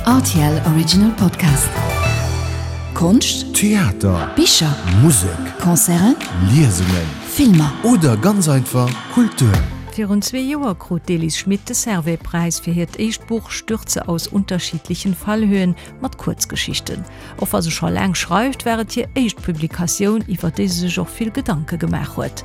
Rtl Original Podcast. Konscht, Theater, Bicher, Musek, Concerten, Liesungen, Filmer. Oder ganz einfach Kultur. Virun zwee Joer krut d'Elise Schmit de Servais-Präis fir hiert éischt Buch Stürze aus unterschiedlichen Fallhöhen mat Kuerzgeschichten. Och wa se scho laang schreift, war et hir éischt Publikatioun, iwwer déi se sech och vill Gedanke gemaach huet.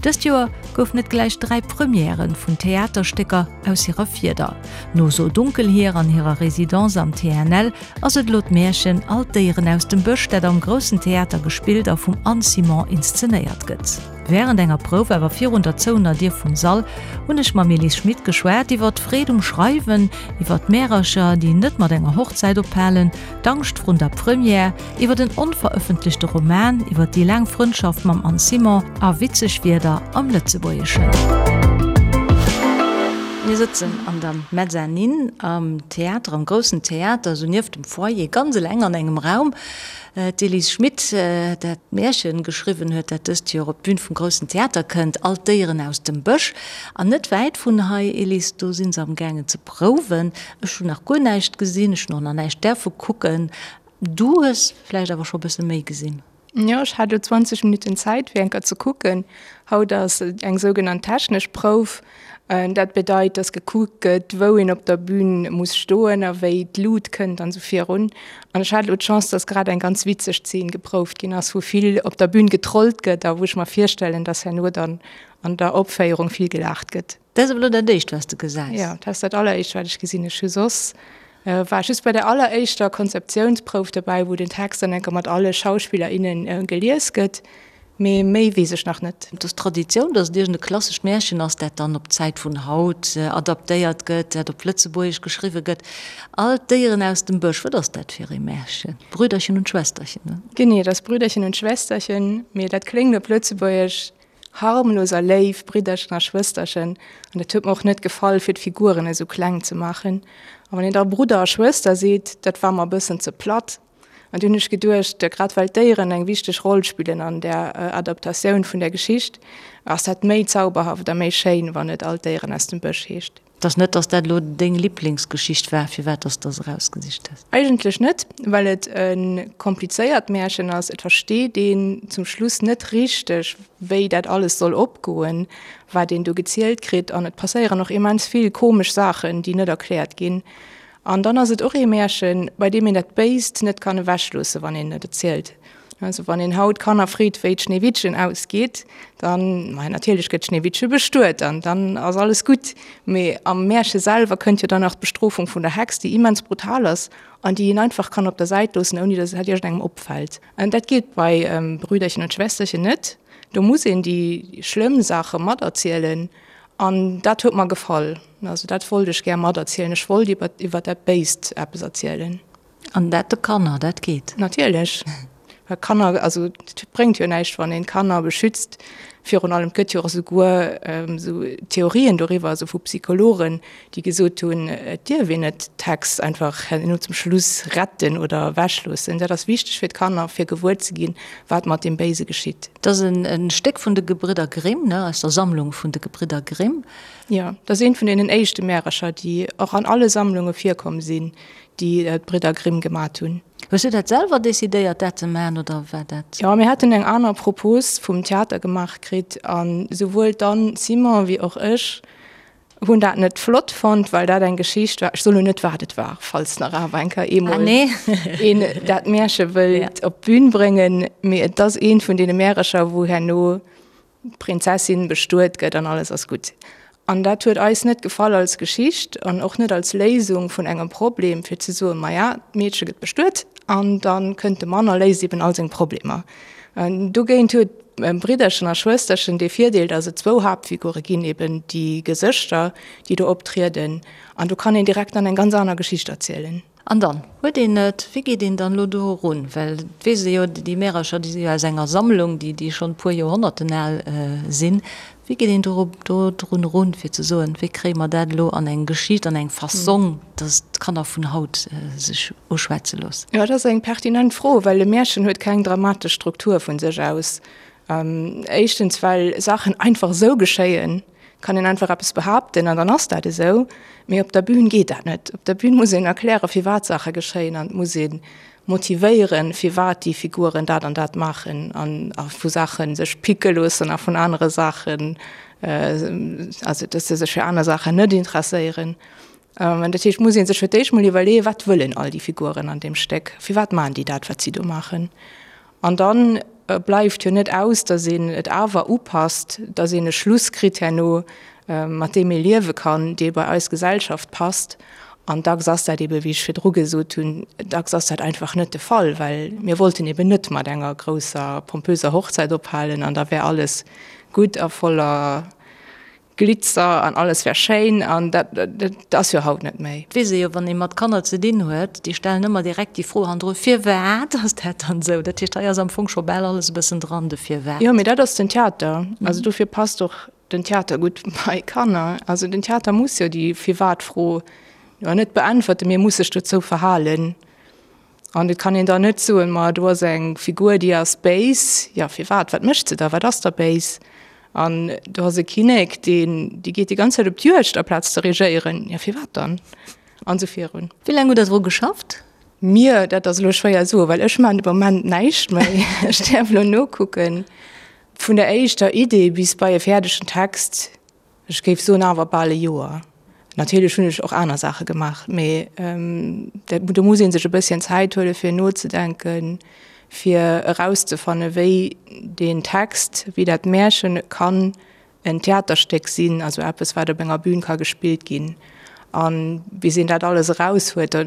Dëst Joer goufen et gläich 3 Premièrë vun Theaterstécker aus hirer Fieder. No So dunkel hier an hirer Residence am TNL ass et elo d'Märchen All d'Déieren aus dem Bësch, dat am Groussen Theater gespillt a vum Anne Simon inszenéiert gëtt. Wärend enger Prouf, awer virun der zouener Dier vum Sall, hunn ech mam Elise Schmit geschwat iwwer d'Freed um Schreiwen, iwwer d'Märercher, déi net mat enger Hochzäit ophalen, d'Angscht vrun der Première, iwwer en onverëffentlechte Roman, iwwer déi laang Frëndschaft mam Anne Simon a witzeg Wierder am Lëtzebuergeschen. Mir sëtzen an der Mezzanine am Theater, am groussen Theater, esou nieft dem Foyer, ganz eleng an engem Raum. D'Elise Schmit, dat d'Märchen geschriwwen huet, dat dëst Joer op d'Bün vum Groussen Theater kënnt, All d'Déieren aus dem Bësch. An net wäit vun hei, Elise, do si se am gaangen ze prouwen. Ech hunn nach guer näischt gesinn, ech hunn och nach näischt däerfe kucken. Du hues vläicht awer scho bësse méi gesinn? Jo, ech hat elo 20 Minutten Zäit fir eng Kéier ze kucken. Haut ass eng sougenannt technesch Prouf. Dat bedeit, dass gekuckt gëtt, wou een op der Bün muss stoen a wéi d'Lut kënnt an esou virun. An ech hat elo d'Chance, dass grad eng ganz witzeg Zeen geprouft ginn ass, wou vill op der Bün getrollt gëtt a wou ech mer virstellen, dass herno dann an der Opféierung vill gelaacht gëtt. Dat ass awer elo dat éischt, wat s de gesäis. Jo, dat ass dat alleréischt, wat ech gesinn. Ech hu soss war ech just bei der alleréischter Konzeptiounsprouf dobäi, wou den Text dann eng Kéier mat alle Schauspiller, innen gelies gëtt. Mee méi weess ech nach net. Et ass Traditioun, datt et iergend e klassescht Märchen ass, dat dann op d'Zäit vun haut adaptéiert gëtt, dat op Lëtzebuergesch geschriwwe gëtt. All d'Déieren aus dem Bësch, wat ass dat fir ee Märchen? Brüderchen und Schwesterchen, ne? Genee, et ass Brüderchen und Schwesterchen, mee dat kléngt op Lëtzebuergesch Harmlos a léif Bridderchen a Schwësterchen, an dat huet mer och net gefall, fir d'Figuren esou kleng ze maachen. A wann een da Brudder a Schwëster seet, dat war mer e bëssen ze platt. An du hunn ech geduecht, grad well d'Déieren eng wichteg Roll spillen an där Adaptatioun vun der Geschicht, ass dat méi zauberhaft a méi schéin, wann et All d'Déieren aus dem Bësch heescht. Et ass net, dass dat elo deng Liblingsgeschicht war, firwat dass de se erausgesicht hues? Eigentlech net, well et e komplizéiert Märchen ass. Et versteet een zum Schluss net richteg, wéi dat alles soll opgoen, wat een do gezielt kritt. An et passéieren och immens vill komesch Saachen, déi net erkläert ginn. An dann ass et och ee Märchen, bei deem een dat Béist net kann ewechloossen, wann een et erzielt. Also wann een haut Kanner freet, wéi d'Schneewittchen ausgeet, dann, maja, natierlech gëtt d'Schneewittche bestuet an dann ass alles gutt. Mee am Märche selwer kënnt jo dann nach d'Bestrofung vun der Hex, déi immens brutal ass an déi een einfach kann op der Säit loossen, ouni datt et iergendengem opfält. An dat geet bei Brüderchen und Schwesterchen net. Do muss een déi schlëmm Saache materzielen an dat huet mer gefall. Also dat wollt ech gär materzielen. Ech wollt iwwer iwwer dat Béist eppes erzielen. An dat de Kanner, dat geet? Natierlech, well Kanner, also et bréngt jo näischt, wann een d'Kanner beschützt. Virun allem, et gëtt jo och esouguer esou Theorien doriwwer, also vu Psychologen, déi gesot hunn, et dierf een net d'Hex einfach herno zum Schluss retten oder ewechloossen. Dat ass wichteg fir d'Kanner, fir gewuer ze ginn, wat mat deem Béise geschitt. Dat ass e Stéck vun de Gebridder Grimm, ne, aus der Sammlung vun de Gebridder Grimm. Jo, dat ass eent vun deenen éischte Märercher, déi och an alle Sammlunge virkomm sinn. déi d'Bridder Grimm gemat hunn. Hues du dat selwer decidéiert, dat ze maachen, oder war dat? Jo, mir haten eng aner Propos vum Theater gemaach kritt an souwuel d'Anne Simon wéi och ech hunn dat net flott fonnt, well dat eng Geschicht war, ech soen elo net, wat et war, falls nach awer eng Kéier eemol een dat Märche wëllt op d'Bün bréngen, mee et ass eent vun deene Märercher, wou herno d'Prinzessin bestuet gëtt an alles ass gutt. An dat huet eis net gefall als Geschicht an och net als Léisung vun engem Problem, fir ze soen, maja, d'Meedche gëtt bestuet an da kënnt de Mann a léist eben all seng Problemer. Dogéint huet Bridderchen a Schwësterchen dee Virdeel, datt et zwou Haaptfigure ginn, eben déi Gesëschter, déi do optrieden, an do kann een direkt dann eng ganz aner Geschicht erzielen. An dann huet een et. Wéi geet een dann elo do erun? Well et weess ee jo, déi Märercher, déi si jo aus enger Sammlung, déi, déi schonn e puer Joerhonnerten al sinn. Wéi geet een do, do drun erun, fir ze soen, wéi kréie mer dat elo an eng Geschicht, an eng Fassong, datt d'Kanner vun haut sech uschwätze loossen? Jo, dat ass eng pertinent Fro, well e Märchen huet keng dramatesch Struktur vu sech aus. Éischtens, well Saachen einfach esou geschéien. Kann een einfach eppes behaapten an dann ass dat esou. Mee op der Bühn geet dat net. Op der Bühn muss een erklären, firwat Saache geschéien an et muss ee motivéieren, firwat déi Figuren dat an dat maachen an a vu Saache sech picke loossen a vun anere Saachen, also dass se sech fir aner Saachen net interesséieren. An dat heescht, muss ee sech fir d'éischt mol iwwerleeën, wat wëllen all déi Figuren an deem Stéck, firwat maachen déi dat, wat si do maachen? An dann bleift jo net aus, datt een et awer upasst, datt een e Schluss kritt herno, mat deem ee liewe kann, dee bei eis Gesellschaft passt. An dacks ass dat ebe, wéi ech virdru gesot hunn, dacks ass dat einfach net de Fall, well mir wollten eben net mat enger grousser pompöser Hochzäit ophalen an da wär alles gutt a voller Glitzer an alles wär schéin an dat dat ass jo haut net méi. Et weess ee jo, wann ee mat Kanner ze dinn huet, déi stellen ëmmer direkt déi Fro hannendru, Firwat ass dat dann esou? Dat heescht, hei ass am Fong scho bal alles e bëssen dran, de Firwat. Jo, mee dat ass den Theater. Also dofir passt och den Theater gutt bei Kanner. Also den Theater muss jo déi Firwat-Fro jo net beäntwerten, mee e muss sech dozou verhalen. An et kann een dann net soen, ma do ass eng Figur, déi ass béis. Jo, firwat? Wat mécht se da? Wat ass da béis? An do ass e Kinnek, deen, dee geet déi ganz Zäit op d'Juegd aplaz ze regéieren. Jo, firwat dann? An esou virun. Wéi laang hutt Der dru geschafft? Mir, dat ass elo schwéier soen, well ech maachen de Moment näischt méi. Ech däerf elo nokucken. Vun der éischter Idee bis bei e fäerdegen Text Ech géif soen awer bal e Joer. Natierlech hunn ech och aner Saache gemaach, mee do muss ee sech e bësschen Zäit huele fir nozedenken, fir erauszefanne wéi deen Text, wéi dat Märchen kann en Theaterstéck sinn, also eppes wat op enger Bühn ka gespillt ginn. A bis een dat alles eraus huet, da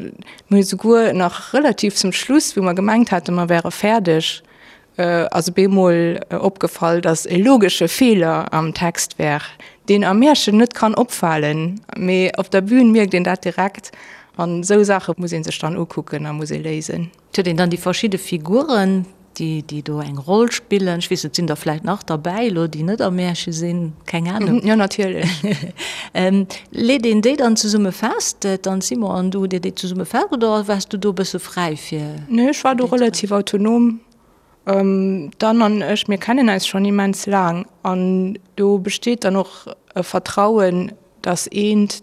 mir hu souguer nach relativ zum Schluss, wou mer gemengt haten, mer wäre fäerdeg, ass op eemol opgefall, datt e logesche Feeler am Text wär, deen am Märchen net kann opfalen, mee op der Bühn mierkt een dat direkt. An esou Saache muss ee sech dann ukucken a muss ee léisen. Et huet een dann déi verschidde Figuren, déi déi do eng Roll spillen. Ech weess net, sinn der vläicht nach derbäi elo, déi net am Märche sinn? Keng Anung. Jo, natierlech. Leet een déi dann zesumme fest, d'Anne Simon an du, hutt Dir déi zesumme fest oder waars du do e bësse fräi fir? Nee, ech war do relativ autonom. D'Anne an ech, mir kennen eis schonn immens laang an do besteet dann och e Vertrauen, datt eent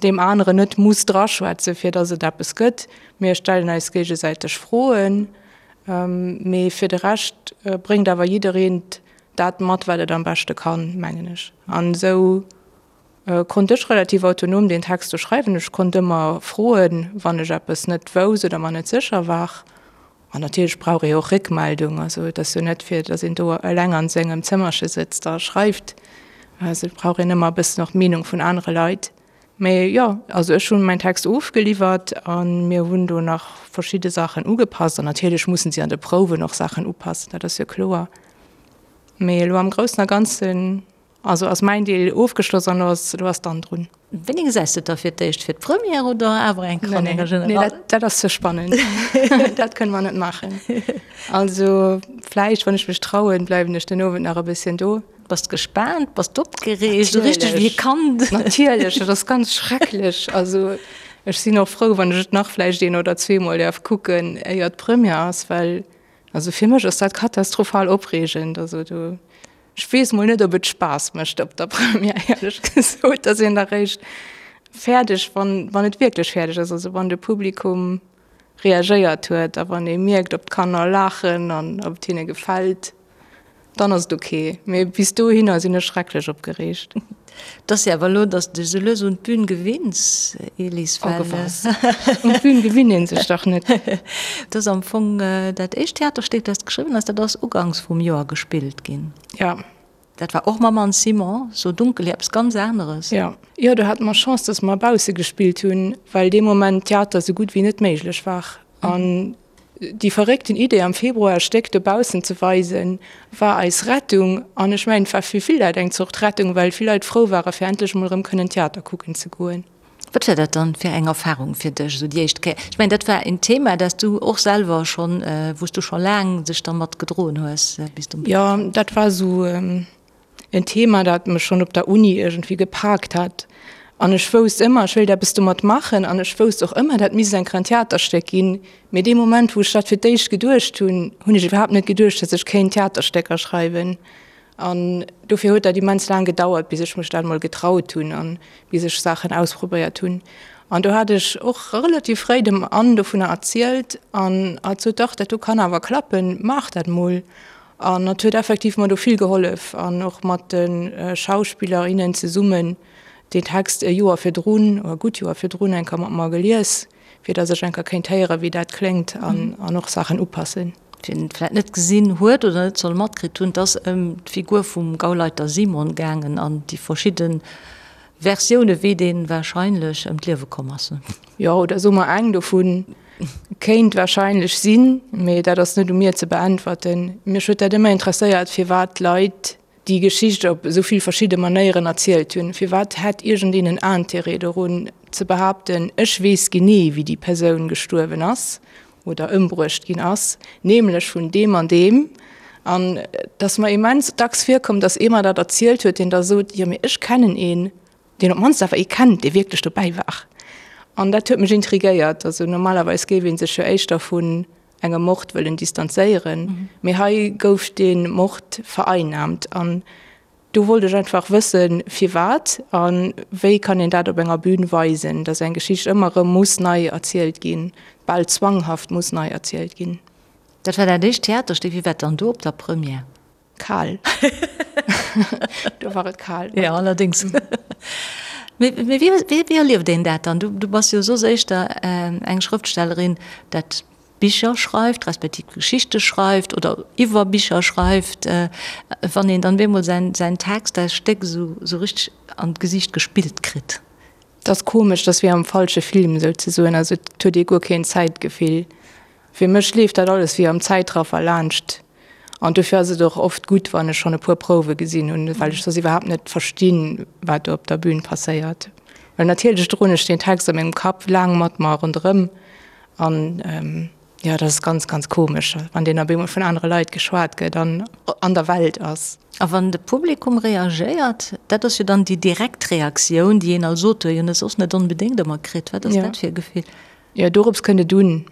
deem aneren net muss draschwätzen, fir datt et eppes gëtt. Mir stellen eis géigesäiteg Froen, mee fir de Rescht bréngt awer jiddereen dat mat, wat et am beschte kann, mengen ech. An esou konnt ech relativ autonom deen Text do schreiwen. Ech konnt ëmmer froen, wann ech eppes net wousst oder mer net sécher war. An natierlech brauch ee och Réckmeldung. Also et ass jo net fir, datt een do eleng an sengem Zëmmerche sëtzt a schreift. Also et brauch een ëmmer e bëssen och d'Meenung vun anere Leit. Mee jo, also ech hunn mäin Text ofgeliwwert a mir hunn do nach verschidde Saachen ugepasst. An natierlech mussen si an de Prouwen och Saachen upassen, dat ass jo kloer. Mee elo am Groussen a Ganzen Also ass mäin Deel ofgeschloss an elo ass, elo ass d'Anne drun. Wéini gesäis de et da fir d'éischt? Fir d'Première oder awer eng Kéier an enger General? Nee, dat, dat ass ze spannend. Dat kënne mer net maachen. Also vläicht, wann ech mech trauen, bleiwen ech den Owend nach e bësschen do. Bass de gespaant? Bass de opgereegt? Esou richteg wéi e Kand? Natierlech, dat ass ganz schrecklech. Also ech sinn och frou, wann ech et nach vläicht een oder zweemol däerf kucken, éier d'Première ass, well also fir mech ass dat katastrophal opreegend. Also do. Ech weess mol net, ob et Spaass mécht op der Première, éierlech gesot. Da ass een da réischt fäerdeg, wann, wann et wierklech fäerdeg ass, also wann de Publikum reagéiert huet a wann ee mierkt, ob d'Kanner laachen an ob et hinne gefält, dann ass et ok. Mee bis dohinner sinn ech schrecklech opgereegt. Et ass jo awer elo, datt s de dech esou lues un d'Bün gewinns, Elise, well. Oh was? Un d'Bün gewinnt ee sech dach net. Et ass am Fong dat éischt Theaterstéck, dat s de geschriwwen hues, dat ass uganks vum Joer gespillt ginn. Ja. Dat war och mam Anne Simon, So dunkel, eppes ganz aneres. Ja. Jo, do hate mer Chance, datt mer bausse gespillt hunn, well dee Moment Theater esou gutt wéi net méiglech war. An Déi verréckten Idee am Februar e Stéck dobaussen ze weisen, war eis Rettung. An ech mengen, et war fir vill Leit eng Zort Rettung, well vill Leit frou ware fir endlech emol erëm kënnen Theater kucken ze goen. Wat war dat dann fir eng Erfahrung fir dech, esou déi éischt Kéier? Ech mengen, dat war en Thema, dat s du och selwer schonn, wou s du scho laang dech dermat gedroen hues, bis du. Jo, dat war esou en Thema, dat mech schonn op der Uni iergendwéi gepaakt hat. An ech wousst ëmmer, ech wéilt eppes domat maachen. An ech wousst och ëmmer, dat misst eng Kéier en Theaterstéck ginn. Mee dee Moment, wou ech dat fir d'éischt geduecht hunn, hunn ech iwwerhaapt net geduecht, datt ech kéint Theaterstécker schreiwen. An dofir huet dat immens laang gedauert, bis ech mech dat mol getraut hunn an bis ech Saachen ausprobéiert hunn. An do hat ech och relativ fréi dem Anne dovunner erzielt an hatt sot, Dach, dat do kann awer klappen, maach dat mol. An hatt huet effektiv mer do vill gehollef an och mat de Schauspiller, innen zesummen deen Text e Joer virdrun, oder e gutt Joer virdrun eng Kéier mat mer gelies. fir dass ech eng Kéier kéint héieren, wéi dat kléngt an an och Saachen upassen. Wien et vläit net gesinn huet oder net soll matkritt hunn, et ass ëm d'Figur vum Gauleiter Simon gaangen an déi verschidde Versioune wéi dee warscheinlech ëm d'Liewe komm ass. Jo, oder soe mer eng dovu kéint warscheinlech sinn, mee dat ass net u mir ze beäntwerten. Mech huet dat ëmmer interesséiert, firwat d'Leit déi Geschicht op esou vill verschidde Manéieren erzielt hunn. Firwat hätt iergendeen en Intérêt dorun ze behaapten, ech weess genee wéi déi Persoun gestuerwen ass oder ëmbruecht ginn ass, nämlech vun deem an deem. An et ass mer immens dacks virkomm, datt ee mer dat erzielt huet, deen da sot, jo mee ech kennen een, deen op d'mannst awer ee kennt, dee wierklech dobäi war. An dat huet mech intrigéiert. Also normalerweis géif ee sech jo éischter vun engem Mord wëllen distanzéieren, mee hei gouf dee Mord vereinnahmt an do wollt ech einfach wëssen, firwat a wéi kann een dat op enger Bühn weisen, dass eng Geschicht ëmmer erëm muss nei erzielt ginn, bal zwanghaft muss nei erzielt ginn. Dat war dat éischt Theaterstéck. Wéi war et dann do op der Première? Kal. Do war et kal. Ja, allerdéngs. Mee wéi, wéi erlieft een dat dann? Du, du bass jo soss éischter eng Schrëftstellerin, dat Bicher schreift, respektiv Geschichte schreift oder iwwer Bicher schreift. Wann een dann bemol säin, säin Text, säi Stéck esou, esou richteg an d'Gesiicht gespillt kritt. Dat ass komesch, dat ass wéi am falsche Film souzesoen. Also et huet ee guer keen Zäitgefill. Fir mech leeft dat alles wéi am Zäitraffer laanscht. An dofir ass et och oft gutt, wann ech schonn e puer Prouwe gesinn hunn, well ech soss iwwerhaapt net verstinn, wat do op der Bün passéiert. Well natierlech droen ech deen Text a mengem Kapp laang mat mer ronderëm an jo, dat ass ganz, ganz komesch, wann deen op eemol vun anere Leit geschwat gëtt an an der Welt ass. A wann de Publikum reagéiert, dat ass jo dann déi direkt Reaktioun, déi een als Auteur jo net soss net onbedéngt ëmmer kritt. Wat ass dat fir e Gefill? Jo, dorops kënnt et un.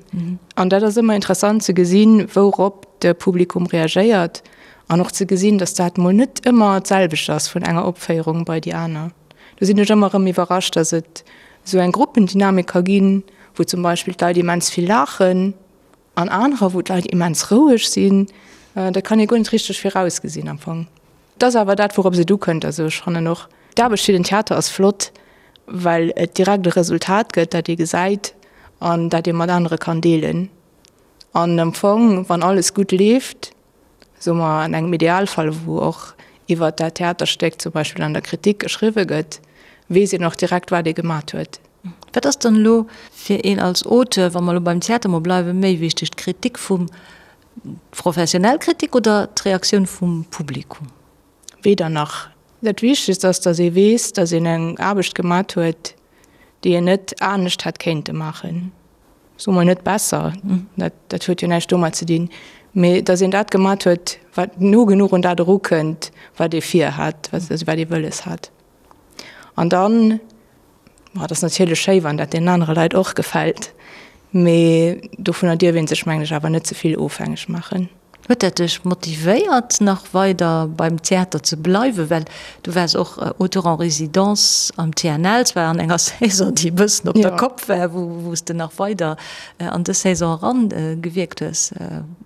An dat ass ëmmer interessant ze gesinn, wourop de Publikum reagéiert an och ze gesinn, datt dat mol net ëmmer d'selwecht ass vun enger Opféierung bei déi aner. Do sinn ech ëmmer erëm iwwerrascht, datt et esou eng Gruppendynamik ka ginn, wou zum Beispill d'Leit immens vill laachen an anerer, wou d'Leit immens roueg sinn. Dat kann ee guer net richteg virausgesinn am Fong. Et ass awer dat, wourops et ukënnt. Also ech fannen och, d'Aarbecht fir den Theater ass flott, well et direkt e Resultat gëtt, dat ee gesäit an dat ee mat anere kann deelen. An am Fong, wann alles gutt leeft, soe mer an engem Idealfall, wou och iwwert dat Theaterstéck zum Beispill an der Kritik geschriwwe gëtt, weess een och direkt, wat ee gemat huet. Wat ass dann elo fir een als Auteur, wa mer elo beim Theater mol bleiwen, méi wichteg, d'Kritik vum D'professionell Kritik oder d'Reaktioun vum Publikum? Weder nach. Dat Wichtegst ass, datt ee weess, datt een eng Aarbecht gemat huet, déi een net anescht hätt kéinte maachen. Soe mer net besser, dat, dat huet jo näischt domat ze dinn, mee datt een dat gemat huet, wat no genuch un dat erukënnt, wat ee virhat, also wat ee wëlles hat. An dann Ma et ass natierlech schéi, wann dat deenen anere Leit och gefält, mee dovunner dierf ee sech, mengen ech, awer net ze vill ofhängeg maachen. Huet dat dech motivéiert, nach weider beim Theater ze bleiwen? Well du waars och Auteur en résidence am TNL, zwar an enger Saison, déi e bëssen op der Kopp war, wou s de nach weider an dës Saison eran gewierkt hues.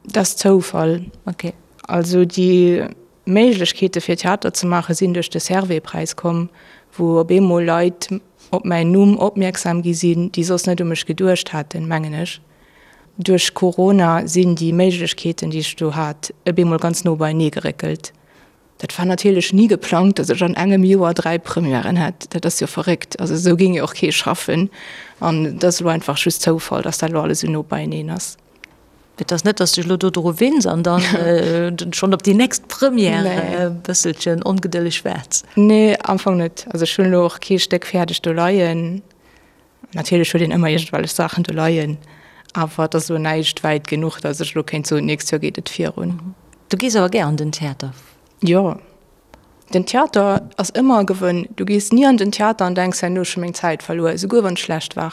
Dat ass Zoufall. Ok. Also déi Méiglechkeete fir Theater ze maache sinn duerch de Servais-Präis komm, wou op eemol Leit op mäin Numm opmierksam gi sinn, déi soss net u mech geduecht haten, mengen ech. Duerch Corona sinn déi Méiglechkeeten, déi ech do hat, op eemol ganz no beienee geréckelt. Dat war natierlech ni geplangt, datt ech an engem Joer 3 Premièren hätt. Dat ass jo verréckt. Also esou géing jo och kee schaffen. An et ass elo einfach just Zoufall, datt dat elo alles esou no beieneen ass. Et ass net, dass de dech elo do dru winns an dann schonn op déi nächst Première e bësselchen ongedëlleg waarts. Nee, am Fong net. Also ech hunn elo och kee Stéck fäerdeg do leien. Natierlech huet een ëmmer iergendwellech Saachen do leien, awer et ass elo näischt wäit genuch, dass ech elo kéint soen, d'nächst Joer geet et virun. Du gees awer gär an den Theater? Jo, den Theater ass ëmmer e Gewënn. Du gees ni an den Theater an denks, herno ech hu meng Zäit verluer, esouguer wann et schlecht war.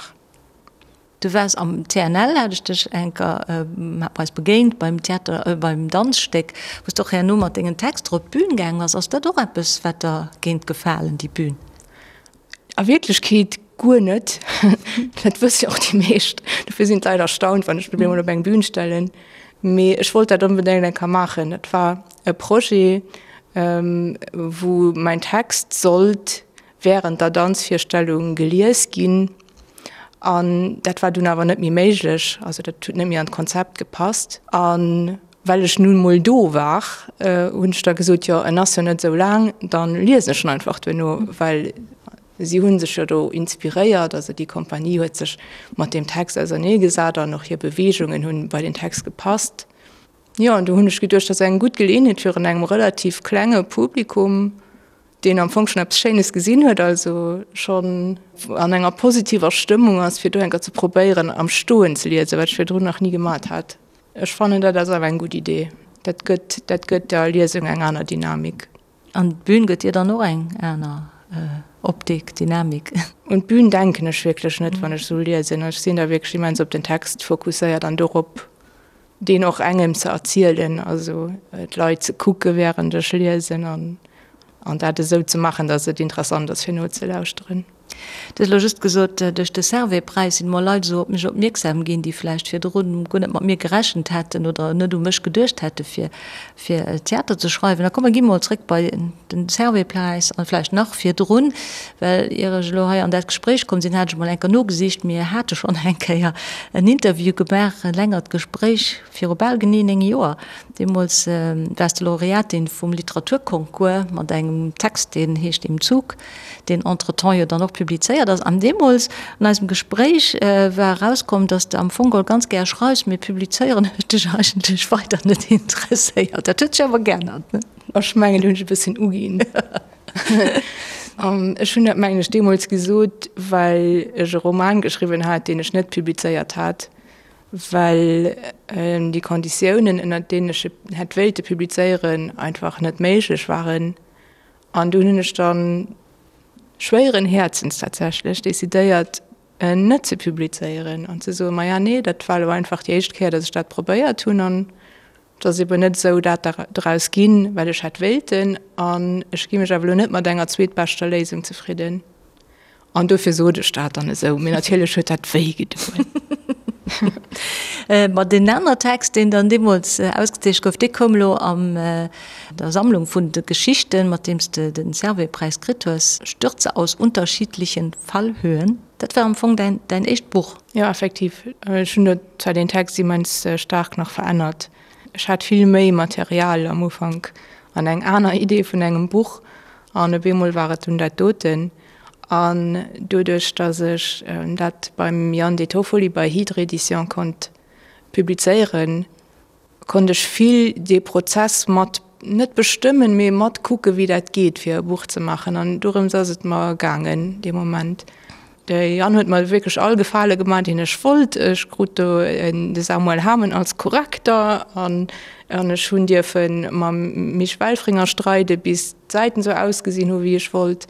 Du waars am TNL, hat ech dech enker, hat mer eis begéint beim Theater, beim Danzstéck, wou s de och herno mat dengen Texter op d'Bün gaang bass. Ass dat och eppes, wat der géint gefalen, déi Bün? A Wierklechkeet guer net. Dat wësse jo och déi meescht. Dofir sinn d'Leit erstaunt, wann ech mech emol op eng Bün stellen. Mee ech wollt dat onbedéngt eng Kéier maachen. Dat war e Projet, wou mäin Text sollt wärend der Danzvirstellung gelies ginn. An dat war dunn awer net méi méiglech, also dat huet net méi an d'Konzept gepasst. A well ech nun emol do war, hunn ech da gesot, jo en ass jo net esou laang, da liesen ech en einfach duerno, well si hu sech jo do inspiréiert, also déi Kompanie huet sech mat deem Text auserneegesat an och hir Beweegungen hunn bei den Text gepasst. Jo, an do hunn ech geduecht, dat ass eng gutt Geleeënheet fir an engem relativ klenge Publikum, deen am Fong schonn eppes Schéines gesinn huet, also schonn an enger positiver Stëmmung ass, fir do eng Kéier ze probéieren am Stoen ze liesen, wat ech virdrun nach ni gemat hat. Ech fannen, dat ass awer eng gutt Idee. Dat gëtt, dat gëtt der Liesung eng aner Dynamik. An d'Bün gëtt dir dann och eng aner Optik, Dynamik? Un d'Bün denken ech wierklech net, wann ech esou liesen. Ech sinn da wierklech immens op den Text fokusséiert an dorop, deen och engem ze erzielen, also d'Leit ze kucke während ech liesen an an dat esou ze maachen, datt et interessant ass fir nozelauschteren. Du hues elo just gesot, duerch de Servais-Präis sinn emol Leit esou op mech opmierksam ginn, déi vläicht virdrun guer net mat mir gerechent hätten oder net u mech geduecht hätte fir fir Theater ze schreiwen. Da komm mer gi mol zréck bei den Servais-Präis an vläicht nach virdrun, well ier ech elo hei an dat Gespréich komm sinn, hat ech emol eng Kéier nogesicht, mir hate schonn eng Kéier en Interview gemaach, e längert Gespréich viru bal genee 9 Joer. Deemools waars de Laureatin vum Literaturconcours mat engem Text, deen heescht Im Zug. deen entretemps jo dann och publizéiert ass. An deemools an eisem Gespréich war erauskomm, dass de am Fong geholl ganz gär schreifs, mee publizéieren huet dech eigentlech weider net interesséiert. Dat huet sech awer geännert, ne? Ech mengen, do hunn ech e bësschen uginn. Ech hunn dat, mengen ech, deemools gesot, well ech e Roman geschriwwen hat, deen ech net publizéiert hat, well déi Konditiounen, ënnert deenen ech e hätt wéilte publizéieren, einfach net méiglech waren. An dunn hunn ech dann schwéieren Häerzens tatsächlech decidéiert, en net ze publizéieren an ze soen, maja nee, dat war elo einfach déi éischt Kéier, datt ech dat probéiert hunn an et ass eben net esou dat draus ginn, wat ech hätt wéilten an ech gi mech awer elo net mat enger zweetbeschter Léisung zefridden. An dofir sot ech dat dann esou. Mee natierlech huet dat wéi gedoen. Ma deen aner Text, deen dann deemools ausgezeecht gouf, dee koum elo an der Sammlung vun de Geschichten, mat deem s de den Servais-Präis kritt hues, Stürze aus unterschiedlichen Fallhöhen. Dat war am Fong däin, däin éischt Buch. Jo, effektiv. Ech hunn do zwar deen Text immens staark nach verännert. Ech hat vill méi Material am Ufank an eng aner Idee vun engem Buch an op eemol war et dunn dat doten. An doduerch, datt ech dat beim Yann De Toffoli bei Hydre Éditions konnt publizéieren, konnt ech vill dee Prozess mat, net bestëmmen, mee mat kucken, wéi dat geet, fir e Buch ze maachen. An dorëms ass et mer gaangen dee Moment. De Yann huet mer wierklech all Gefale gemaach, deen ech wollt. Ech krut do de Samuel Hamen als Korrekter an ech hunn dierfe mam Misch Welfringer streide bis d'Säiten esou ausgesinn hu wéi ech wollt.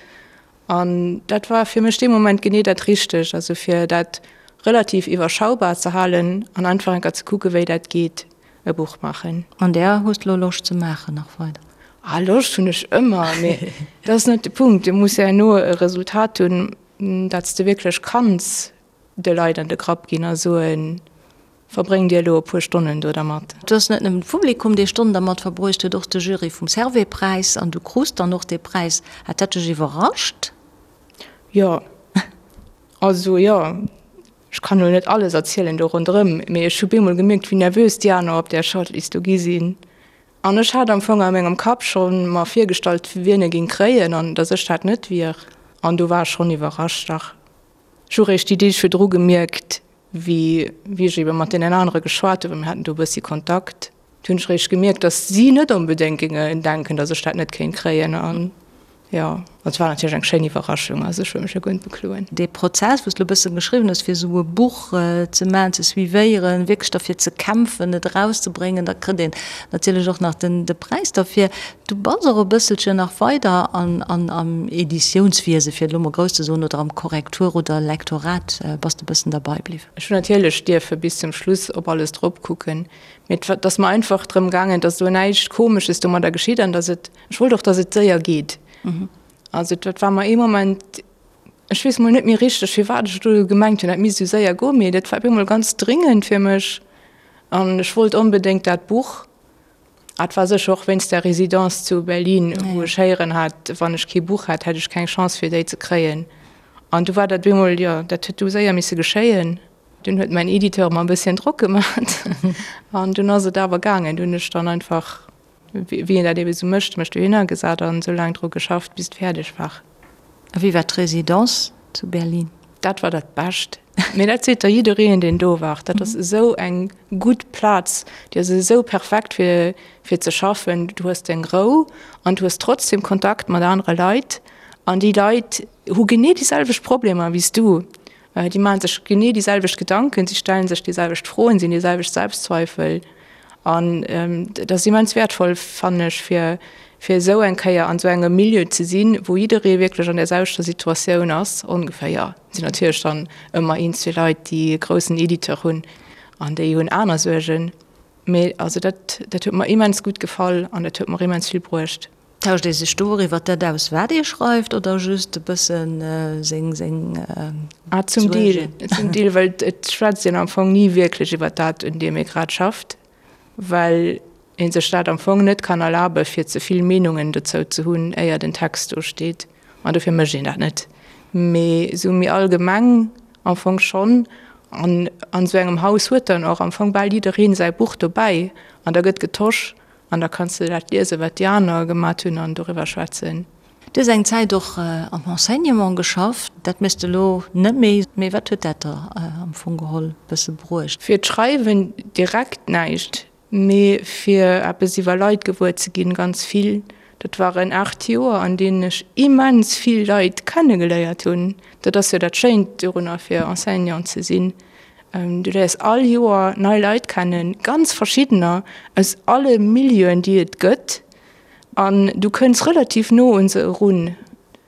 An dat war fir mech dee Moment genee dat Richtegt, also fir dat relativ iwwerschaubar ze halen an einfach eng Kéier ze kucke wéi dat geet, e Buch maachen. An där hues de lo Loscht ze maachen nach weider? Ah, Loscht hunn ech ëmmer, mee dat ass net de Punkt. Du muss herno e Resultat hunn, dat s de wierklech kanns de Leit an de Grapp ginn a soen, Verbréngt Dir elo e puer Stonnen do dermat. Et ass net nëmmen d'Publikum, dee Stonnen dermat verbruecht huet, och de Jury vum Servais-Präis. An du krus dann och dee Präis. Hat dat dech iwwerrascht? Jo, also jo. Ech kann elo net alles erzielen do ronderëm, mee ech hu bemol gemierkt, wéi nervös déi aner op där Shortlist do gi sinn. An ech hat am Fong a mengem Kapp scho mer virgestallt, wien e géing kréien an datt ech dat net wier. An do war ech schonn iwwerrascht, dach. Ech hu réischt déi Deeg virdru gemierkt, wéi wéi ech ebe mat deenen anere geschwat hunn, well mir haten do e bëssi Kontakt, do hunn ech réischt gemierkt, datt si net onbedéngt géingen denken, datt ech dat net kéint kréien. An. Jo, et war natierlech eng schéin Iwwerraschung, also ech wëll mech jo guer net bekloen. Dee Prozess, wou s de elo e bësse beschriwwen hues, fir esou e Buch ze maachen, ze suivéieren, wierklech derfir ze kämpfen, et erauszebréngen, da kritt een natierlech och nach den de Präis derfir. Du bass och e bësselchen nach weider an an am Editiounswiese, fir et elo mol grouss ze soen, oder am Korrektur oder Lektorat bass de e bëssen derbei bliwwen. Ech hunn natierlech dierfe bis zum Schluss op alles drop kucken, mee et ass mer einfach drëm gaangen, datt do näischt Komesches domadder geschitt an datt et Ech wollt och, dass et séier geet. Also dat war mer ee Moment, ech weess mol net méi richteg, firwat ech do gemengt hunn, dat misst esou séier goen, mee dat war op eemol ganz dringend fir mech an ech wollt onbedéngt dat Buch. Ah, et war sécher och wéinst der Résidence zu Berlin, wou ech héieren hat, wann ech kee Buch hätt, hätt ech keng Chance fir déi ze kréien. An du war dat op eemol, jo, dat huet du séier misse geschéien. Dunn huet mäin Editeur mer e bësschen Drock gemat an dunn ass et awer gaangen. Dunn hunn ech dann einfach Wéi een dat ebe sou mécht, mech dohinner gesat an sou laang dru geschafft, bis et fäerdeg war. A wéi war d'Residence zu Berlin? Dat war dat Bescht. Mee dat seet der jiddereen, deen do war. Dat ass esou eng gutt Plaz, déi ass esou perfekt fir, fir ze schaffen. Du hues deng Rou an du hues trotzdem Kontakt mat anere Leit. An déi Leit hu genee déi selwecht Problemer wéi s du. Déi maache sech genee déi selwecht Gedanken, si stelle sech déi selwecht Froen, si hunn déi selwecht Selbstzweifel. An dat ass immens wäertvoll, fannen ech, fir fir esou eng Kéier an esou engem Milieu ze sinn, wou jidderee wierklech an där selwechter Situatioun ass, ongeféier. Et sinn natierlech dann ëmmer een, zwee Leit, déi e groussen Editeur hunn an déi hunn aner Suergen. Mee also dat dat huet mer immens gutt gefall an dat huet mer immens vill bruecht. Tauscht ee sech do och iwwer dat aus, wat ee schreift, oder just e bëssen seng seng Ah, zum Deel, zum Deel, well et schwätzt een am Fong ni wierklech iwwer dat, un deem ee grad schafft, well ee sech dat am Fong net kann erlabe fir ze vill Meenungen dozou ze hunn, éier den Text do steet. An dofir mécht een dat net. Mee esou méi allgemeng am Fong schonn. An an esou engem Haus huet dann och am Fong bal jiddereen säi Buch dobäi an da gëtt getosch An da kanns de dat liesen, wat déi aner gemat hunn an doriwwer schwätzen. Du hues eng Zäit och am Enseignement geschafft. Dat méchs de elo net méi. Mee wat huet dat der am Fong geholl bësse bruecht? Fir d'Schreiwen direkt näischt, mee fir eppes iwwer Leit gewuer ze ginn, ganz vill. Dat waren 8 Joer, an deenen ech immens vill Leit kennegeléiert hunn. Dat ass jo dat Schéint dorunner, fir Enseignant ze sinn. Du léiers all Joer nei Leit kennen, ganz verschiddener, aus alle Milieuen, déi et gëtt. An du kënns relativ no un se erun,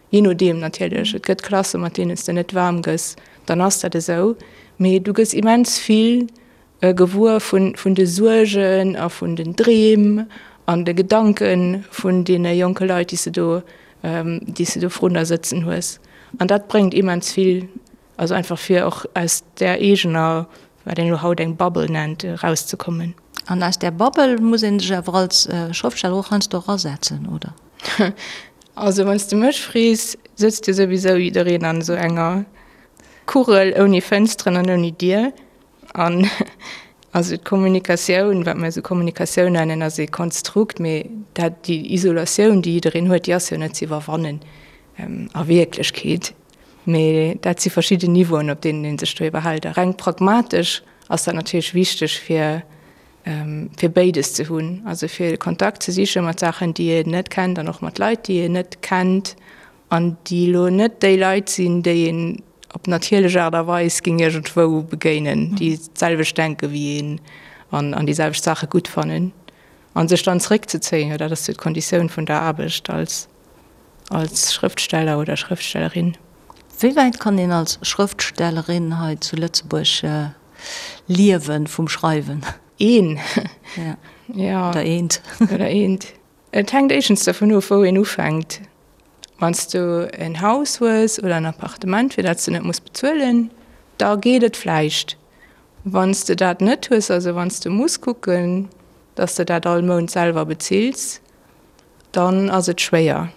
jee nodeem natierlech. Et gëtt Klasse mat deenen s de net waarm gëss, dann ass dat esou. Mee du gëss immens vill gewuer vun de Suergen a vun den Dreem an de Gedanke vun deene jonke Leit, déi s de do, déi s de do vrun der sëtzen hues. An dat bréngt immens vill. Also einfach fir och aus där eegener, wat een elo haut eng Bubble nennt, erauszekommen. An aus där Bubble muss ee sech awer als Schrëftsteller och heiansdo erasetzen, oder? Also wann s de mech frees, sëtzt jo souwisou jiddereen an esou enger Kugel ouni Fënsteren an ouni Dier. An also d'Kommunikatioun, wat mir esou Kommunikatioun nennen, ass ee Konstrukt, mee dat, déi Isolatioun, déi jiddereen huet, déi ass jo net ze iwwerwannen a Wierklechkeet. Mee dat si verschidden Niveauen, op deenen ee sech do iwwerhält. A reng pragmatesch ass dat natierlech wichteg, fir, fir béides ze hunn, also fir Kontakt ze siche mat Saachen, déi een net kennt an och mat Leit, déi een net kennt an déi elo net déi Leit sinn, déi een op natierlech Aart a Weis géing iergendwou begéinen, déi d'selwecht denke wéi een an an déi selwecht Saache gutt fannen. A sech dann zeréckzezéien, jo dat ass jo d'Konditioun vun der Aarbecht als als Schrëftsteller oder Schrëftstellerin. Wéi wäit kann een als Schrëftstellerin hei zu Lëtzebuerg liewen vum Schreiwen? Een. Ja. Oder eent. Oder eent. Et hänkt éischtens dovun of, wou een ufänkt. Wann s du en Haus hues oder en Appartement, fir dat s du net muss bezuelen, da geet et vläicht. Wann s de dat net hues, also wann s de muss kucken, datt s de dat all Mount selwer bezills, dann ass et schwéier.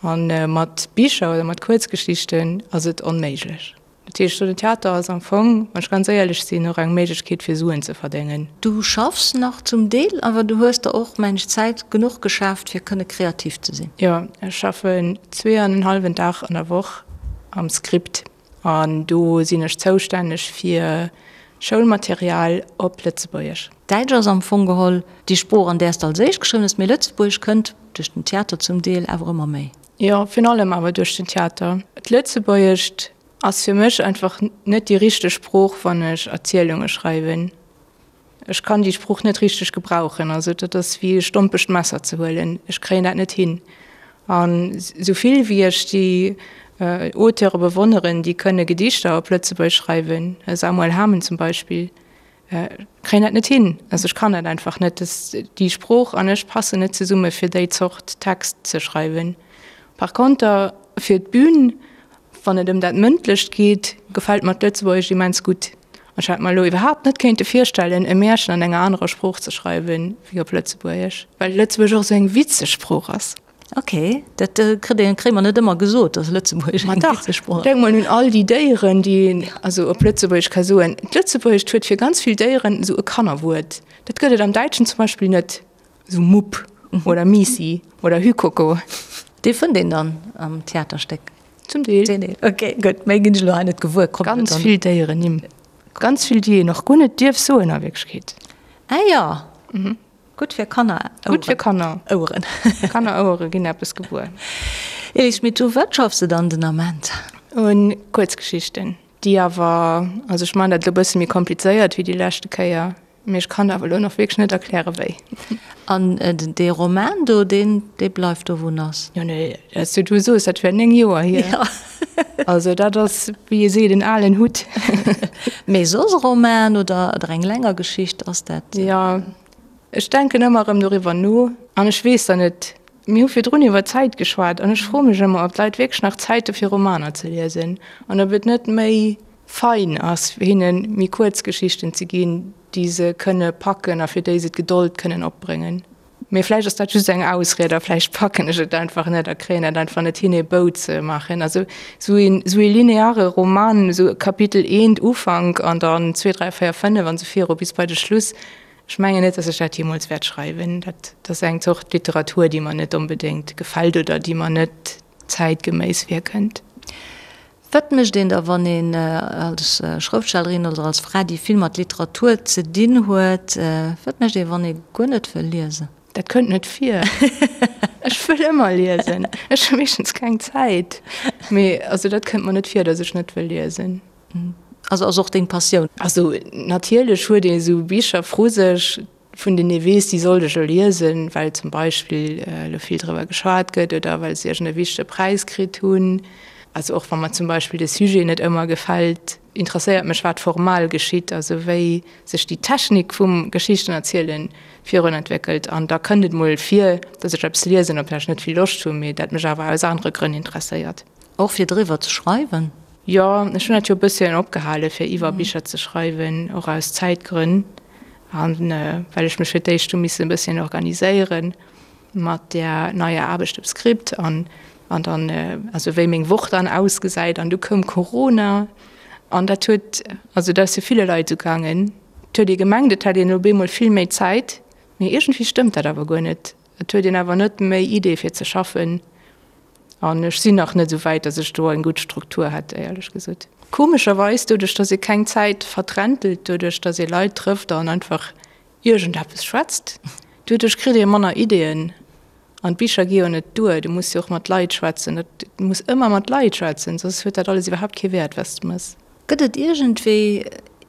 A mat Bicher oder mat Kuerzgeschichten ass et onméiglech. Dat heescht, den Theater ass am Fong, wann ech ganz éierlech sinn, och eng Méiglechkeet fir Suen ze verdéngen. Du schaffs nach zum Deel, awer du hues der och, mengen ech, Zäit genuch geschaaft, fir kënne kreativ ze sinn. Jo, ech schaffen zweeanenhallwen Dag an der Woch am Script. An do sinn ech zoustänneg fir. Schoulmaterial op Lëtzebuergesch. Däitsch ass am Fong geholl déi Sprooch, an där s de als éischt geschriwwen hues, mee Lëtzebuergesch kënnt duerch den Theater zum Deel awer ëmmer méi. Jo, virun allem awer duerch den Theater. D'Lëtzebuergescht ass fir mech einfach net déi richteg Sprooch, wann ech Erzielunge schreiwen. Ech kann déi Sprooch net richteg gebrauchen. Also dat ass wéi e stompegt Messer ze huelen. Ech kréien dat net hin. An esou vill wéi ech déi Auteure bewonneren, déi kënne Gedichter op Lëtzebuergesch schreiwen, Samuel Hamen zum Beispill, kréien dat net hin. Also ech kann dat einfach net. Déi Sprooch an ech passen net zesumme fir déi Zort Text ze schreiwen. Par konter fir d'Bün, wann et ëm dat Mëndlecht geet, gefält mer d'Lëtzebuergescht immens gutt. Ech hätt mer elo iwwerhaapt net kéinte virstellen, e Märchen an enger anerer Sprooch ze schreiwen, wéi op Lëtzebuergesch, well Lëtzebuergesch och esou eng witzeg Sprooch ass. Ok, dat kritt een, kréie mer net ëmmer gesot, dass Lëtzebuergesch eng witzeg Sprooch ass. Denk mol un all déi Déieren, déi een also op Lëtzebuergesch ka soen. D'Lëtzebuergescht huet fir ganz vill Déieren esou e Kannerwuert. Dat gëtt et am Däitschen zum Beispill net, esou Mupp oder Miissi oder Hükoko. Dee fënnt een dann am Theaterstéck. Zum Deel. Zum Deel. Ok, gutt. Méi ginn ech elo hei net gewuer. Kommt Ganz dann. vill Déierennimm. Ganz vill, déi een och guer net dierf soen a Wierklechkeet. Ah jo. Mhm. Gutt fir Kanner. Gutt fir Kanner. Oueren. Kannerouere ginn eppes gewuer. Elis Schmit, u wat schaffs de dann den Ament? Un Kuerzgeschichten, déi awer, also ech man dat elo e bësse méi komplizéiert wéi déi leschte Kéier, Mee ech kann awer elo nach wierklech net erkläre wéi. An dee Roman do, deen, dee bleift do wou en ass? Jo, nee, also du soos, dat wär 9 Joer hier. Jo. Also dat ass, wéi ee seet, en alen Hutt. Mee soss e Roman oder, oder eng länger Geschicht, ass dat? Jo, ech denken ëmmer erëm doriwwer no an ech weess dann net, mir hu virdrun iwwer Zäit geschwat an ech froe mech ëmmer, ob d'Leit wierklech nach Zäit hu fir Romaner ze liesen an ob et net méi fein ass, fir hinne méi kuerz Geschichten ze ginn, déi se kënne packen a fir déi se d'Gedold kënnen opbréngen. Mee vläicht ass dat just eng Ausried a vläicht packen ech et einfach net a kréien et einfach net hin, ee Bou ze maachen. Also esou een, esou ee lineare Roman, esou Kapitel eent, Ufank an dann zwee, dräi, véier, fënnef an esou viru bis bei de Schluss, ech mengen net, datt ech dat jeemools wäert schreiwen. Dat ass eng Zort Literatur, déi mer net onbedéngt gefält oder déi mer net zäitgeméiss virkënnt. Wat mécht een da, wann een als Schrëftstellerin oder als Fra, déi vill mat Literatur ze dinn huet, wat mécht een, wann ee guer net wëll liesen? Dat kënnt net vir. Ech wëll ëmmer liesen. Ech hu meeschtens keng Zäit. Mee also dat kënnt mer net vir, datt ech net wëll liesen. Also ass och deng Passioun? Also natierlech huet ee sou Bicher vru sech, vun deenen ee weess, déi sollt ech elo liesen, well zum Beispill elo vill driwwer geschwat gëtt oder well se iergend e wichtege Präis kritt hunn. Also och wa mer zum Beispill de Sujet net ëmmer gefält, interesséiert mech, wat formal geschitt, also wéi sech déi Technik vum Geschichtenerzielen virun entwéckelt. An da kënnt et mol vir, datt ech eppes liesen, op dat ech net vill Loscht hunn, mee dat mech awer aus anere Grënn interesséiert. Och fir driwwer ze schreiwen? Jo, ech hunn dat jo e bësschen opgehale fir iwwer Bicher ze schreiwen, och aus Zäitgrënn. An well ech mech fir d'éischt hu missen e bësschen organiséiere mat där neier Aarbecht op Script an an dann, also wéi meng Woch dann ausgesäit. An du koum Corona an dat huet, also dat ass jo ville Leit esou gaangen, et huet ee gemengt, et hätt een elo op eemol vill méi Zäit, mee iergendwéi stëmmt dat awer guer net. Et huet een awer net méi Idee fir ze schaffen. An ech sinn nach net esou wäit, datt ech do eng gutt Struktur hätt, éierlech gesot. Komescherweis, doduerch datt ee keng Zäit vertrentelt, doduerch datt ee Leit trëfft an einfach iergendeppes schwätzt, doduerch kritt ee manner Ideeën. An d'Bicher gi jo net duer, du muss jo och mat Leit schwätzen. Du muss ëmmer mat Leit schwätzen, soss huet dat alles iwwerhaapt kee Wäert, wat s de mëss. Gëtt et iergendwéi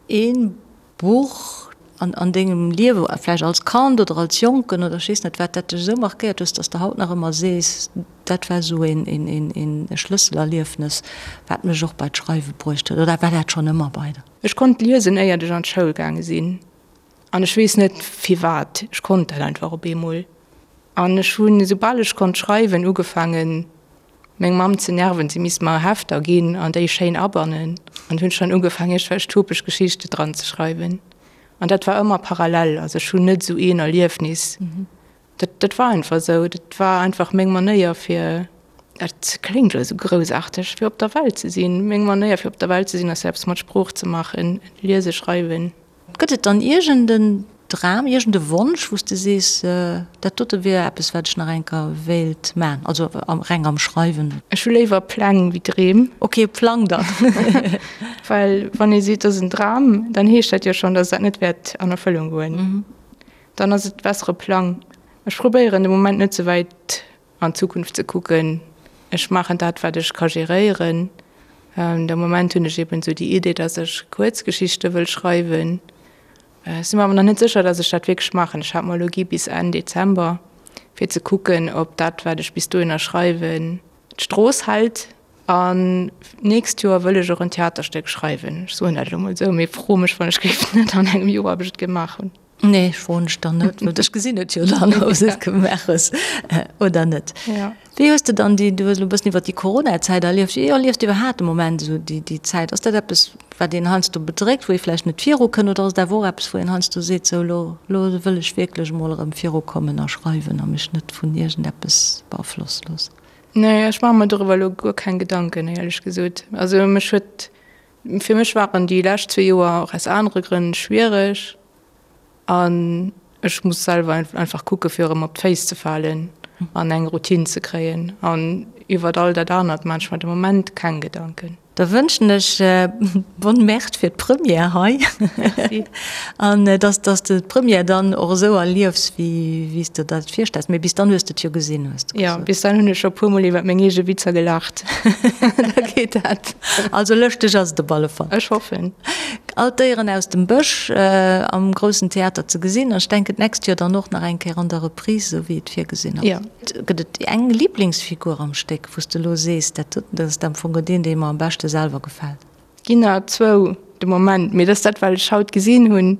ee Buch an an dengem Liewe, vläicht als Kand oder als Jonken oder ech weess net wat, dat dech esou markéiert hues, dass de haut nach ëmmer sees, dat war esou een een een Schlësselerliefnes, wat mech och bei d'Schreiwe bruecht huet? Oder war dat schonn ëmmer bei der? Ech konnt liesen éiert ech an d'Schoul gaange sinn an ech weess net firwat, ech konnt dat einfach op eemol an ech hunn esoubal ech konnt schreiwen ugefaangen meng Mamm ze nerven, si misst mer Hefter ginn an déi schéin abannen an hunn schonn ugefaangen iergendwelch topeg Geschichte dran ze schreiwen an dat war ëmmer parallel, also ech hunn net esou een Erliefnis, dat dat war einfach esou, dat war einfach meng Manéier fir, dat kléngt elo esou groussaarteg, fir op der Welt ze sinn, meng Manéier fir op der Welt ze sinn ass eppes mat Sprooch ze maachen, liese, schreiwen. Gëtt et dann iergend en. Dram, iergend e Wonsch, wou s de sees, dat dote wier eppes, wat ech nach eng Kéier wéilt man, also reng am Schreiwen? Ech hu léiwer Pläng wéi Dreem. Ok, Plang dann. Well wann ee seet, dat ass en Dram, dann heescht dat jo schonn, datt dat net wäert an Erfëllung goen. Dann ass et besser e Plang. Ech probéieren de Moment net ze wäit an d'Zukunft ze kucken. Ech maachen dat, wat ech ka geréieren. De Moment hunn ech eben esou déi Idee, datt ech Kuerzgeschichte wëll schreiwen. Ech si mer awer nach net sécher, datt ech dat wierklech maachen. Ech hat mer elo gi bis Enn Dezember, fir ze kucken, ob dat, wat ech bis dohinner schreiwen, d'Strooss hält. An d'nächst Joer wëll ech och en Theaterstéck schreiwen. Ech soen dat elo mol esou, mee fro mech wann ech géif net an engem Joer, ob ech et gemaach hunn. Nee, ech froen dech dann net, well ech gesinn et jo dann, ob s de et gemaach hues oder net. Wéi hues de dann déi, du hues elo e bëssen iwwer déi Corona-Zäit erlieft, wéi erliefs de iwwerhaapt de Moment esou déi, déi Zäit? Ass dat eppes, wat een heiansdo bedréckt, wou ee vläicht net virukënnt, oder ass et awer och eppes, wou een heiansdo seet, sou elo, elo wëll ech wierklech emol erëm virukommen a schreiwen a mech net vun iergendeppes beaflosse loossen? Nee, ech maache mer doriwwer elo guer keng Gedanken, éierlech gesot. Also mech huet, fir mech waren déi lescht zwee Joer och aus anere Grënn schwiereg. An ech muss selwer einfach kucke fir erëm op d'Féiss ze falen an eng Routine ze kréien. An iwwert all dat anert maan ech mer de Moment keng Gedanken. Da wënschen ech bonne merde fir d'Première hei. Merci. An dass dass de d'Première dann och esou erliefs wéi wéi s de der dat virstells. Mee bis dann hues de et jo gesinn, hues de gesot. Jo, bis dann hunn ech scho puer mol iwwert meng eege Witzer gelaacht. Da geet dat. Also lëschteg ass et op alle Fall. Ech hoffen. All d'Déieren aus dem Bësch am groussen Theater ze gesinn an ech denken d'nächst Joer dann och nach eng Kéier an der Reprise, esou wéi et virgesinn ass. Gëtt et eng Liblingsfigur am Stéck, wou s de elo sees, dat doten, dat ass am Fong deen, dee mer am beschte selwer gefält? Ginn der zwou de Moment, mee dat ass dat, wat ech haut gesinn hunn.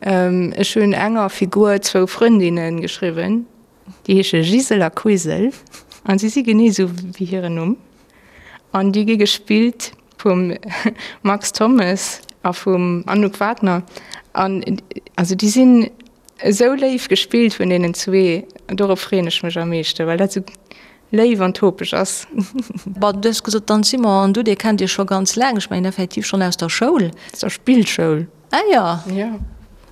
Ech hunn enger Figur zwou Frëndinne geschriwwen. Déi heesche Gisel a Quisel an si si genee esou wéi hiren Numm. An déi gi gespillt vum Max Thommes a vum Anouk Wagner. An also déi sinn esou léif gespillt vun deenen zwee. Dorop freeën ech mech am meeschten, well dat esou léif an topeg ass. Bon, du hues gesot, d'Anne Simon an du, dir kennt iech scho ganz laang. Ech mengen effektiv schonn aus der Schoul. Aus der Spillschoul. Ah jo. Jo,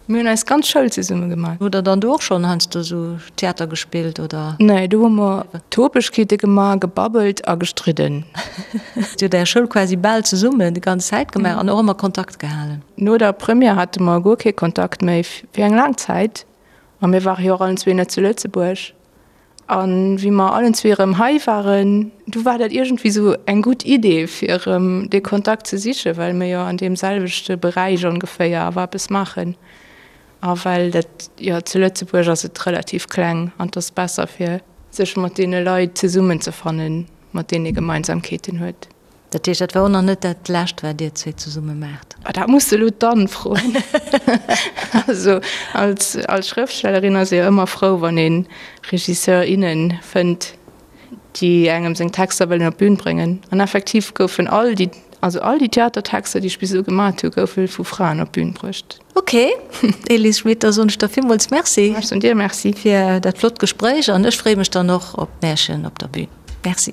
mir hunn eis ganz Schoul zesumme gemaach. Hutt der dann do och schonn heiansdo esou Theater gespillt, oder? Nee, do hu mer Topegkeete gemaach, gebabbelt a gestridden. Dir hutt är Schoul quasi bal zesummen déi ganz Zäit gemaach an och ëmmer Kontakt gehalen? No der Première hate mer guer kee Kontakt méi fir eng laang Zäit. A mir ware jo och allen zwee net zu Lëtzebuerg. A wéi mer allen zwee erëm hei waren, du war dat iergendwéi sou eng gutt Idee, fir erëm dee Kontakt ze sichen, well mir jo an deem selwechte Beräich ongeféier awer eppes maachen. A well dat, jo, zu Lëtzebuerg ass et relativ kleng an et ass besser, fir sech mat deene Leit zesummenzefannen, mat deenen ee Gemeinsamkeeten huet. Dat heescht, dat war och nach net dat Lescht, wat Dir zwee zesumme maacht? Ah, dat muss de elo d'Anne froen. Also als, als Schrëftstellerin ass ee jo ëmmer frou, wann ee Regisseur, innen fënnt, déi engem seng Texter wëllen op d'Bün bréngen. An effektiv goufen all déi, also all déi Theatertexter, déi ech bis elo gemat hu, goufe vu Fraen op d'Bün bruecht. Ok, Elise Schmit, da soen ech der villmools Merci. Ech soen dir Merci. Fir dat flott Gespréich an ech freeë mech dann och op d'Märchen op der Bün. Merci.